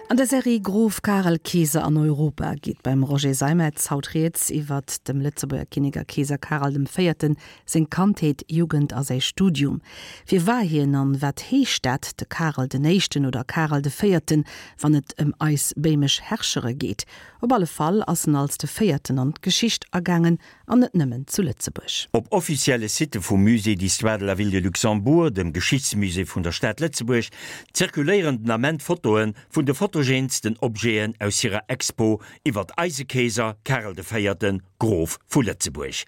An der Serie Grof Karel, Keeser an Europa geet beim Roger Seimetz haut rieds iwwert dem Lëtzebuerger Kinnek a Keeser Karel dem Véierten seng Kandheet, Jugend a säi Studium. Wie war hien an wat heescht dat, de Karel den Éischten oder Karel de Véierten, wann et ëm eis béimesch Herrschere geet? Op alle Fall ass en als de Véierten an d'Geschicht agaangen, an net nëmmen zu Lëtzebuerg. Op offizielle Sitte vum Musée d'histoire de la ville de Luxembourg, dem Geschichtsmusée vun der Stad Lëtzebuerg, zirkuléieren den Ament Fotoe vun de fotogeensten Objeten aus hirer Expo iwwert eise Keeser Karel de Véierten, Grof vu Lëtzebuerg.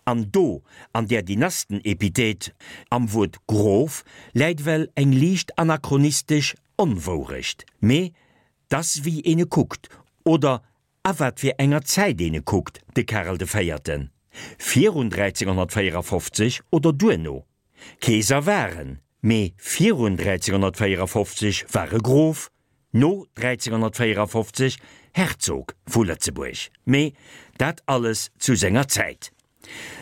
An do, an där Dynasten-Epithet am Wuert Grof, läit ewell eng liicht anachronistesch Onwourecht, mee 't ass wéi een e kuckt, oder A wat fir enger Zäit een e kuckt, de Karel de Véierten, virun 1354 oder duerno. Keeser war en, mee virun 1354 war e Grof, no 1354 Herzog vu Lëtzebuerg. Mee dat alles zu senger Zäit.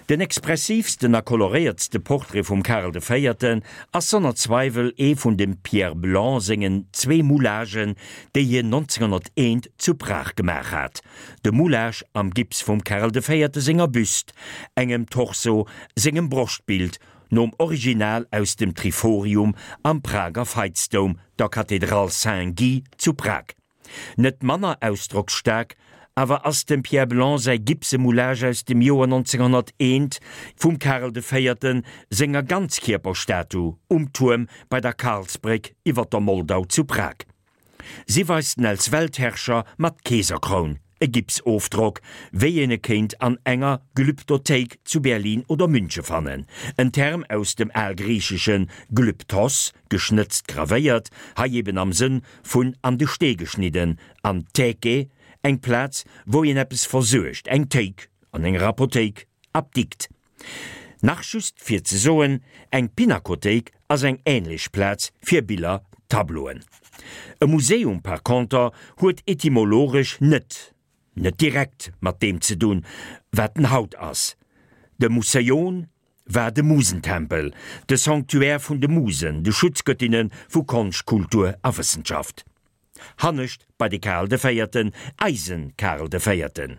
Den expressiivsten a koloréiertste Portrait vum Karel de Véierten ass sonner Zweiwel ee vun dem Pierre Blanc sengen zwee Moulagen, déi hien 1901 zu Prag gemaach hat, de Moulage am Gips vum Karel de Véierte senger Büst, engem Torso sengem Broschtbild, nom Original aus dem Triforium am Prager Veitsdoum, der Kathedral Saint-Guy zu Prag. Net manner ausdrocksstaark awer ass dem Pierre Blanc säi Gipsemoulage aus dem Joer 1901 vum Karel de Véierten senger Ganzkierperstatu um Tuerm bei der Karlsbréck iwwer der Moldau zu Prag. Si weist en als Weltherrscher mat Keeserkroun, e Gipsofdrock, wéi een e kéint an enger Glyptothéik zu Berlin oder Münche fannen, en Term aus dem algriichesche glyptos, geschnëtzt, gravéiert, hei eben am Sënn vun an de Stee geschnidden, an Theke, eng Plaz, wou een eppes versuergt, eng Théik an enger Apothéik, Apdikt. Nach just fir ze soen, eng Pinakothéik ass eng änlech Plaz fir Biller, Tableauen. E Museum par conter huet etymologesch net, net direkt mat deem ze dunn, wat en haut ass. De Museion war de Musentempel, de Sanctuaire vun de Musen, de Schutzgöttinne vu Konscht, Kultur a Wëssenschaft. Hannescht bei de Karel de Véierten, eise Karel de Véierten.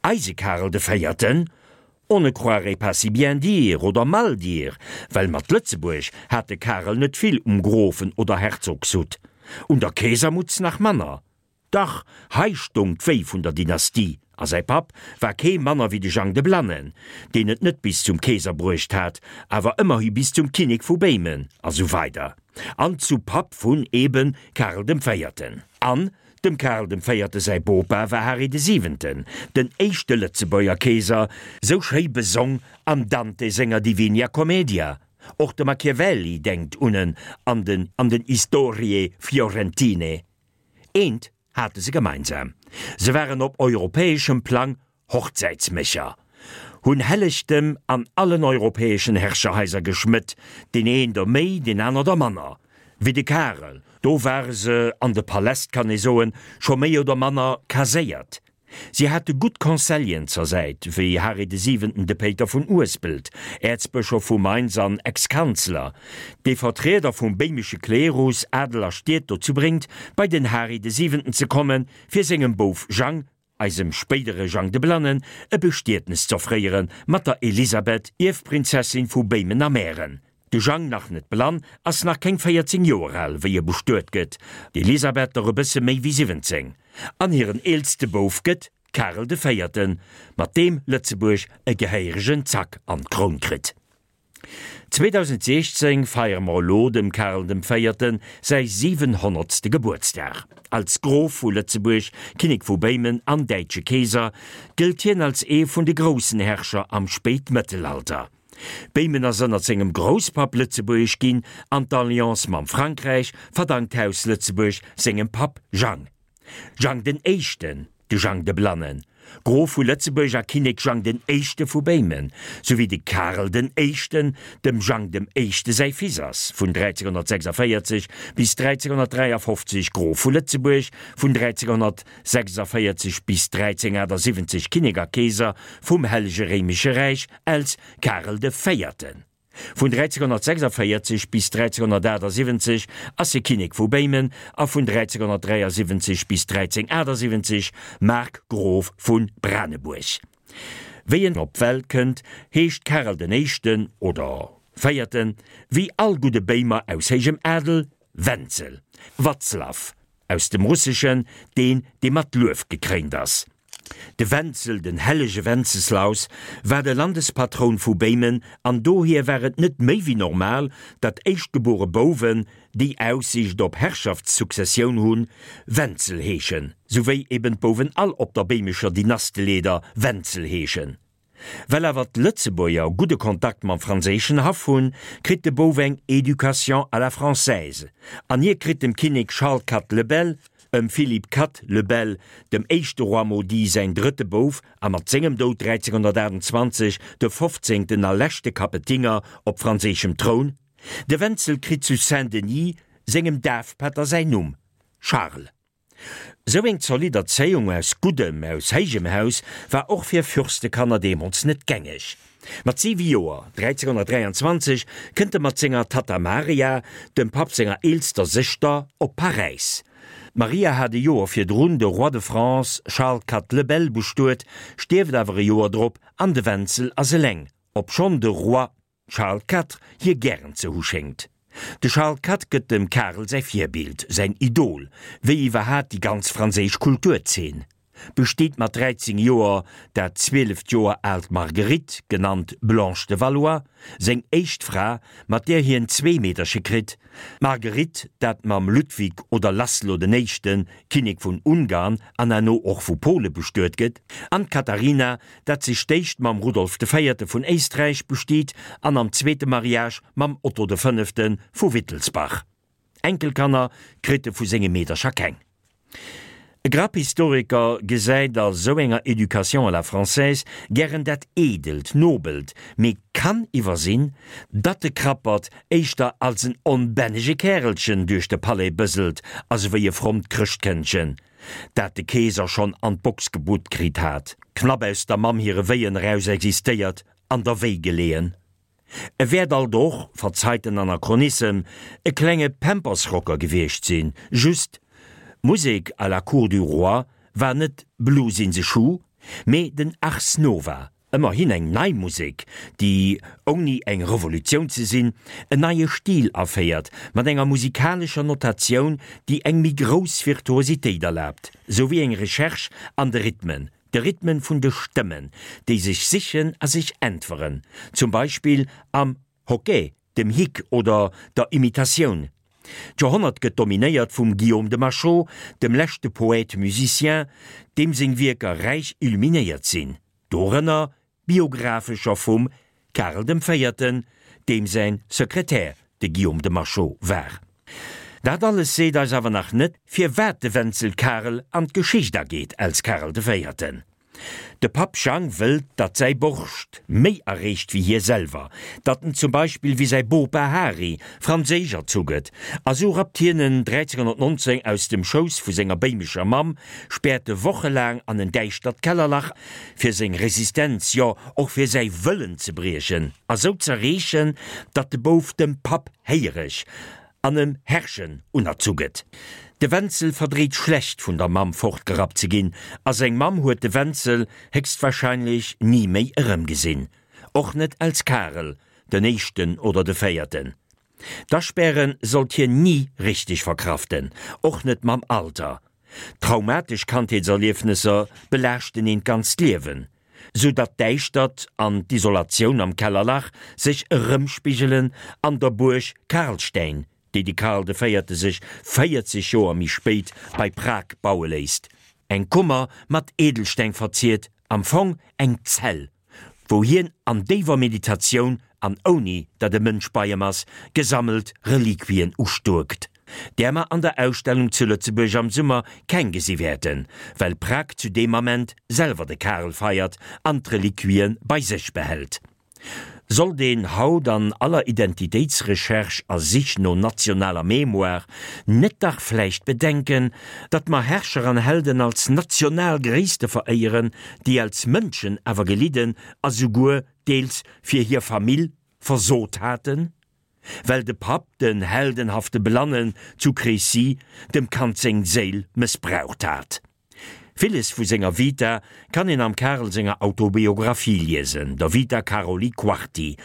Eise Karel de Véierten? On ne croirait pas si bien dire oder mal dire, well mat Lëtzebuerg hat de Karel net vill um Grofen oder Herzogshutt, un der Keesermutz nach manner. Dach, hei stong d'Wéi vun der Dynastie, a säi Papp war kee manner wéi de Jang de Blannen, deen et net bis zum Keeser bruecht hat, awer ëmmerhi bis zum Kinnek vu Béimen, a sou weider an zu Papp vun eben Karel dem Véierten. An dem Karel dem Véierte säi Bopa war Hari de Siwenten, den éischte Lëtzebuerger Keeser, sou schéi besong am Dante senger Divinia Commedia. Och de Machiavelli denkt un en an den an den Historie Fiorentine. Eent hate se gemeinsam, se waren op europäeschem Plang Hochzäitsmécher, hunn Hellegtem an allen europäeschen Herrscherhaiser geschmëtt, deen een der méi, deen aner der manner, wéi de Karel, do ware se an de Paläst, kann ee soen, scho méi oder manner kaséiert. Si hate gutt Conseilleren zur Säit, wéi Hari de Siwenten, de Péiter vun Uespelt, Äerzbëschof vu Mainz an Ex-Kanzler, dee Vertrieder vum béimesche Klerus, Adel a Stied dozou bréngt, bei den Hari de Siwenten ze kommen, fir sengem Bouf Jang, eisem spéidere Jang de Blannen, e Bestietnes z'offréiere mat der Elisabeth, Ierfprinzessin vu Béimen a Mähren. De Jang, nach net blann, ass nach keng 14 Joer al, wéi e bestuet gëtt, d'Elisabeth der e bësse méi wéi 17, an hiren eelste Bouf gëtt Karel de Véierten, mat deem Lëtzebuerg e gehéieregen Zack an d'Kroun kritt. 2016 feiere mer elo dem Karel dem Véierten säi 700. Gebuertsdag. Als Grof vu Lëtzebuerg, Kinnek vu Béimen an däitsche Keeser gëllt hien als ee vun de groussen Herrscher am Spéitmëttelalter. Béimen ass ënnert sengem Grousspapp lëtzebuergesch ginn an d'Alliance mam Frankräich verdankt d'Haus Lëtzebuerg sengem Papp Jang. Jang den Éischten, de Jang de Blannen, Grof vu Lëtzebuerg a Kinnek Jang den Éischte vu Béimen, souwéi de Karel den Éischten, dem Jang dem Éischte säi Fils ass, vun 1346 bis 1353 Grof vu Lëtzebuerg, vun 1346 bis 1378 Kinnek a Keeser vum Hellege Réimesche Räich als Karel de Véierten. Vun 1346 bis 1378 ass e Kinnek vu Béimen a vun 1373 bis 1378 Markgrof vu Branebuerg. Wéi en op d'Welt kënnt, heescht Karel den Éischten, oder Véierten, wéi all gudde Béimer aus héijem Adel, Wenzel, Watzlaw, aus dem Russeschen, deen, dee mat Luef gekréint ass. De Wenzel, den hellege Wenzeslaus, war de Landespatroun vu Béimen an dohier war et net méi wéi normal, datt éischtgebuere Bouwen, déi Aussiicht op Herrschaftssuccessioun hunn, Wenzel heeschen, souwéi eben d'Bouwen all op der béimescher Dynasteleeder Wenzel heeschen. Well awer d'Lëtzebuerger gudde Kontakt mam franséischen Haff hunn, kritt de Bouf eng Éducation à la française an hie kritt dem Kinnek Charles Quatre le Bel, ëm Philippe Quatre le Bel, dem éischte Roi maudit säin drëtte Bouf a mat sengem Doud 1328 de fofzéngten a leschte Kapetinger op franséischem Troun. De Wenzel kritt zu Saint-Denis sengem Dafpätter säin Numm, Charles. Sou eng zolidd Erzéiung aus guddem, aus héijem Haus war och fir Fürstekanner deemools net gängeg. Mat siwe Joer, 1323, kënnt e mat senger Tatta Maria, dem Papp senger eelster Sëschter, op Paräis. D'Maria hat e Joer virdrun de Roi de France Charles Quatre le Bel bestuet, stierft awer e Joer drop an de Wenzel ass eleng, obschonn de Roi Charles Quatre hie gären ze hu schéngt. De Charles Quatre gëtt dem Karel säi Virbild, säin Idol, wéi iwwerhat déi ganz franséisch Kulturzeen. Besteet mat 13 Joer dat 12 Joer aalt Marguerite, genannt Blanche de Valois, seng éischt Fra, mat där hien zwee Meederche kritt, d'Marguerite, dat mam Ludwig oder Laszlo den Éischten, Kinnek vun Ungarn an herno och vu Pole bestuet gëtt, an d'Katharina, dat sech d'éischt mam Rudolf de Véierte vun Éisträich bestiet an am zweete Mariage mam Otto de Fënnefte vu Wittelsbach. Enkelkanner kritt e vu senge Meedercher keng. E Grapp Historiker gesäit a sou enger Éducation à la française gären dat Eedelt, Nobelt, mee kann iwwersinn, datt de Krappert éischter als en onbännege Kärelchen duerch de Palais bëselt a souwéi e frommt Chrëschtkëndchen, dat de Keeser schonn an d'Box gebutt kritt hat, knapp aus der Mamm hire Wéien eraus existéiert, an der Wéi geleeën. E wäert alt och, verzeit den Anachronissem, e klenge Pampersrocker gewiescht sinn, just, d'Musek à la cour du roi war net Blues in the Shoe, mee den Ars Nova, Ëmmerhin eng nei Musek, déi, ouni eng Revolutioun ze sinn, en neie Stil aféiert, mat enger musikalescher Notatioun, déi eng méi grouss Virtuositéit erlaabt, souwéi eng Recherche an de Rhythmen, de Rhythmen vun de Stëmmen, déi sech sichen a sech äntweren, zum Beispill am Hoquet, dem Hic oder der Imitatioun. D'Joerhonnert gëtt dominéiert vum Guillaume de Machaut, dem leschte Poète musicien, deem seng Wierker räich illuminéiert sinn, dorënner biographescher vum Karel dem Véierten, deem säin Sekretär de Guillaume de Machaut war. Dat alles seet eis awer nach net, firwat de Wenzel Karel an d'Geschicht ageet als Karel de Véierten. De Papp Jang wëllt, datt säi Borscht méi erreecht wéi hie selwer, datt en zum Beispill wéi säi Bopa Hari franséisch erzu gëtt, a sou rappt hien en 1319 aus dem Schouss vu senger béimescher Mamm, späert e wochelaang an en däischtert Kellerlach, fir seng Resistenz, jo och fir säi Wëllen ze briechen a sou z'erreechen, datt de Bouf dem Papp héiereg an em Herrschen unerzu gëtt. De Wenzel verdréit schlecht vun der Mamm fortgerappt ze ginn, a seng Mamm huet de Wenzel héchstwahrscheinlech ni méi erëmgesinn, och net als Karel den Éischten oder de Véierten. D'Aspäre sollt hien ni richteg verkraften, och net mam Alter. Traumatesch Kandheetserliefnesser belaaschten een d'ganzt Liewen, sou datt d'Däischtert an d'Isolatioun am Kellerlach sech erëmspigelen an der Buerg Karlstein, déi de Karl de Véierte sech 40 Joer méi spéit bei Prag baue léisst, eng Kummer mat Edelsteng verziert, am Fong eng Zell. wou hien an déiwer Meditatioun an ouni datt e Mënsch bei em ass, gesammelt Reliquien ustuerkt, där mer an der Ausstellung zu Lëtzebuerg am Summer keng gesi wäerten, well Prag zu deem Ament selwer de Karel feiert an d'Reliquie bei sech behält. Sollt een haut an aller Identitéitsrecherche a Sich no nationaler Mémoire net dach vläicht bedenken, datt mer Herrscher an Helden als national Gréisste veréieren, déi als Mënschen awer gelidden a souguer deels fir hir Famill. versot haten? Well de Papp, den heldenhafte Blannen zu Crécy, dem Kand seng Séil mëssbraucht hat. Villes vu senger Vita kann een am Karel senger Autobiographie liesen, der Vita Karoli Quarti,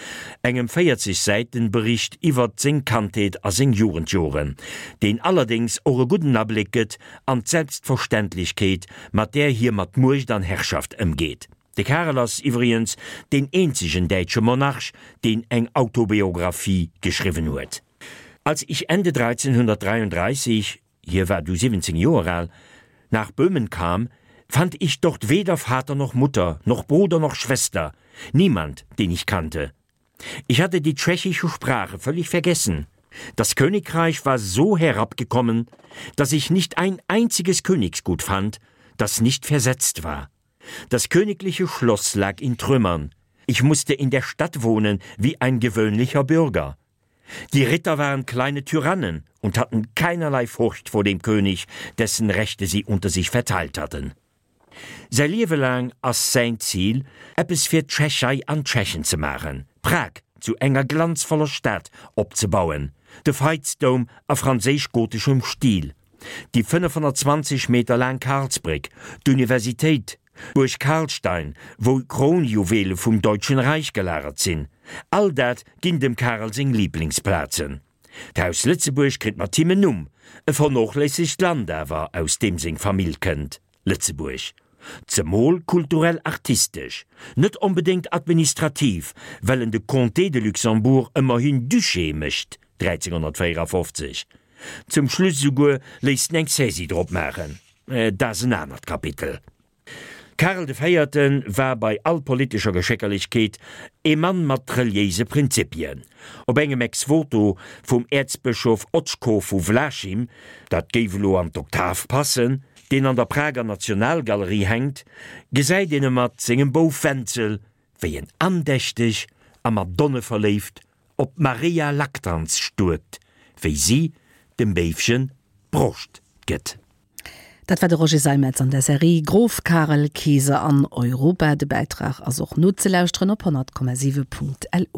engem 40 Säiten Bericht iwwert seng Kandheet a seng Jugendjoren, deen allerdéngs och e gudden Abléck gëtt an d'Selbstverständlechkeet, mat där hie mat Muecht an Herrschaft ëmgeet. De Karel ass iwwregens deen eenzegen däitsche Monarch, deen eng Autobiographie geschriwwen huet. Als ich Ende 1333, hie war du 17 Joer al, nach Böhmen kam, fand ich dort weder Vater noch Mutter, noch Bruder noch Schwester, niemand, den ich kannte. Ich hatte die tschechische Sprache völlig vergessen. Das Königreich war so herabgekommen, dass ich nicht ein einziges Königsgut fand, das nicht versetzt war. Das königliche Schloss lag in Trümmern. Ich musste in der Stadt wohnen wie ein gewöhnlicher Bürger. Die Ritter waren kleine Tyrannen und hatten keinerlei Furcht vor dem König, dessen Rechte sie unter sich verteilt hatten. Säi Liewe laang ass säin Zil, eppes fir d'Tschechei an d'Tschechen ze maachen, Prag zu enger glanzvoller Stad opzebauen, de Veitsdoum a franséisch-goteschem Stil, déi 520 Meter laang Karlsbréck, d'Universitéit, d'Buerg Karlstein, wou Kronjuwele vum Deutschen Reich gelagert sinn, all dat ginn dem Karel seng Liblingsplazen. D'Haus Lëtzebuerg kritt mat him en Numm, e vernoochléissegt Land awer, aus deem seng Famill kënnt, Lëtzebuerg. Zemol kulturell-artistesch, net onbedéngt administrativ, well en de Comté de Luxembourg ëmmerhin Duché mécht, 1354. Zum Schluss esouguer léisst en eng Saisie drop maachen. Mä dat ass en anert Kapitel. Karel de Véierte war bei all politescher Geschéckerlechkeet ee Mann mat reliéise Prinzipien. Op engem Ex-Voto vum Äerzbëschof Očko vu Vlašim, dat géif elo an d'Oktav passen, deen an der Prager Nationalgalerie hänkt, gesäit een e mat sengem Bouf Wenzel, wéi en andächteg a madonneverléift op d'Maria Lactans stuerkt, wéi si dem Béifchen d'Broscht gëtt. Dat war de Roger Seimetz an der Serie Grof Karel, Keeser an Europa. De Bäitrag ass och nozelauschteren op 100,7.lu.